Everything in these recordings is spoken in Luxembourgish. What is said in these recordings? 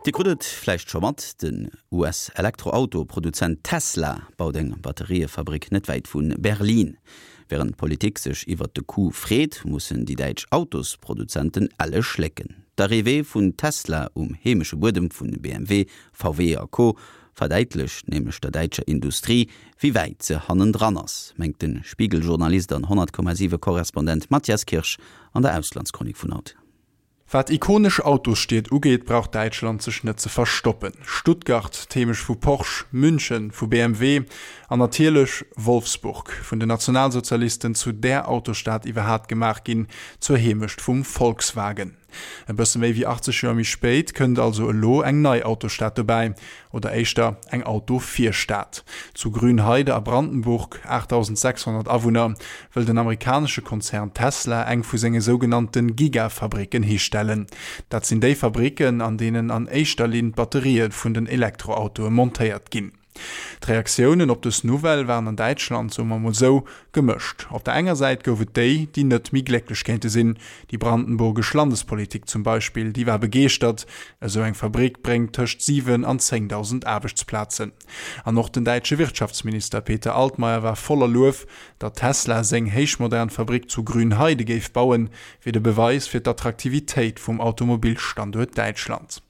Dir krut et vläicht scho mat, Den US-Elektroauto-Produzent Tesla baut eng Batteriëfabrik net wäit vu Berlin. Wärend d'Politik sech iwwert de Coup freet, mussen déi däitsch Autosproduzenten elle schlécken. D'Arrivée vun Tesla um heemesche Buedem vu BMW, VW a Co. Verdäitlecht nämlech der däitscher Industrie, wéi wäit se hannendran ass, mengt de Spiegel-Journalist an 100,7 Korrespondent Matthias Kirsch an der Auslandschronik vun haut. Wat ikonesch Autosstied ugeet, brauch Däitschland sech net ze verstoppen. Stuttgart, d'Heemecht vu Porsche, München, vu BMW, an natierlech Wolfsburg, vun den Nationalsozialisten zu där Autosstad iwwerhaat gemaach ginn, zur Heemecht vum Volkswagen. E bësse méi wéi 80 Joer méi spéit kënnt also elo eng nei Autostad dobäi, oder éischter eng Autovirstad. Zu Grünheide a Brandenburg, 8.600 Awunner, wëll den amerikanesche Konzern Tesla eng vu senge sougenannte Gigafabricken histellen. Dat sinn déi Fabricken, an deenen an éischter Linn d'Batterië vun den Elektroautoe montéiert ginn. D'Reaktiounen op dës Nouvelle waren an Däitschland, soe mer mol sou, gemëscht. Op der enger Säit gouf et déi, déi net méi glécklech kéinte sinn. Déi brandenburgesch Landespolitik zum Beispill, déi war begeeschtert, esou eng Fabrick bréngt tëscht 7 an 10.000 Aarbechtsplazen. An och den däitsche Wirtschaftsminister Peter Altmaier war voller Luef, datt Tesla seng héichmodern Fabrick zu Grünheide géif bauen, wier de Beweis fir d'Attraktivitéit vum Automobilstanduert Däitschland.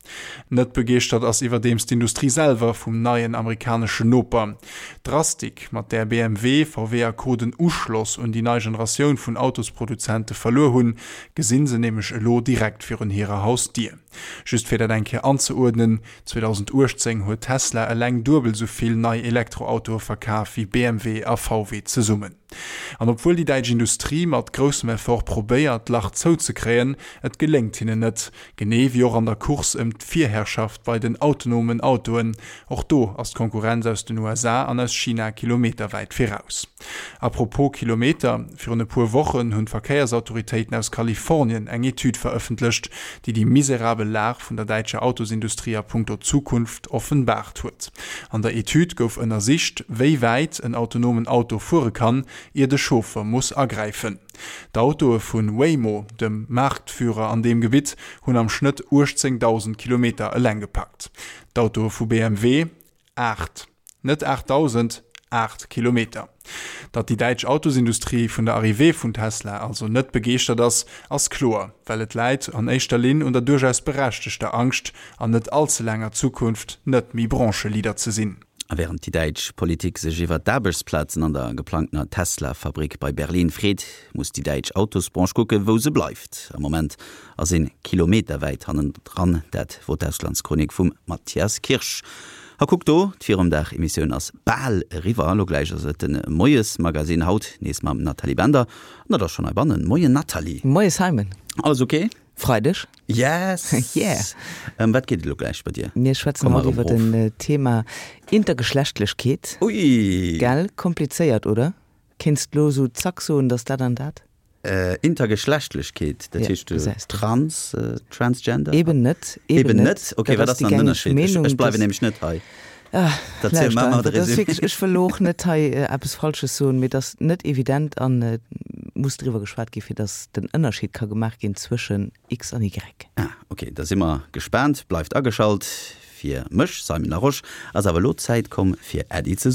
Net begeeschtert ass iwwerdeems d'Industrie selwer vum neien amerikaneschen Noper. D'Drastik, mat där BMW, VW a Co. Den Uschloss un déi nei Generatioun vun Autosproduzente verluer hunn, gesinn se nämlech elo direkt virun hirer Hausdier. Just fir dat eng Kéier anzeuerdnen, 2018 huet Tesla eleng duebel sou vill nei Elektroautoe verkaf wéi BMW a VW zesummen. An obwuel déi däitsch Industrie mat groussem Effort probéiert, d'Lach zouzekréien, et geléngt hinnen net. Genee wéi och an der Course ëm d'Virherrschaft bei den autonomen Autoen. Och do ass d'Konkurrenz aus den USA an aus China kilometerwäit viraus. A propos Kilometer, Virun e puer Wochen hunn d'Verkéiersautoritéiten aus Kalifornien eng Etüd verëffentlecht, déi déi miserabel Lag vun der däitscher Autosindustrie a punkto Zukunft offenbaart huet. An der Etüd gouf ënnersicht, wéi wäit en autonomen Auto fuere kann, ier de Chauffer muss agräifen. D'Autoe vu Waymo, dem Marktführer an deem Gebitt, hunn am Schnëtt 18.000 Kilometer eleng gepackt. D'Autoe vu BMW 8. Net 8.000, 8 Kilometer. Datt déi däitsch Autosindustrie vun der Arrivée vun Tesla also net begeeschtert ass, ass kloer, well et läit an éischter Linn un der duerchaus berechtegter Angscht, an net all ze laanger Zukunft net méi Brancheleader ze sinn. A wärend déi däitsch Politik sech iwwer d'Aarbechtsplazen an der geplangtener Tesla-Fabrick bei Berlin freet, muss déi däitsch Autosbranche kucken, wou se bleift. Am Moment ass een kilometerwäit hannendran. Dat wor d'Auslandschronik vum Matthias Kirsch. A kuck do, d'Virumdag-Emissioun ass bal eriwwer. Elo gläich ass et de Moiesmagazine, haut nees mam Nathalie Bender. An dat ass schonn heibannen. Moien Nathalie. Moie Simon. Alles ok? Freideg. Yes! Yeah! Ëm wat geet et elo gläich bei dir? Mir schwätzen haut iwwer den Thema Intergeschlechtlechkeet. Ui! Gell? Komplizéiert, oder? Kéints d'lo sou zack soen, dass dat an dat? Intergeschlechtlechkeet, dat heescht trans, transgender? Eben net, eben net. Ok, wat ass dann den Ënnerscheed? Ech bleiwen nämlech net hei. Lauschter einfach, dat ass wierklech, ech wëll elo och net hei eppes Falsches soen, mee et ass net evident an et muss driwwer geschwat ginn, fir datt den Ënnerscheed ka gemaach ginn zwëschen X an Y. Ah, ok, da si mer gespaant. Bleift ageschalt. Fir mech, Simon Larosche, ass awer elo d'Zäit komm fir Äddi ze soen.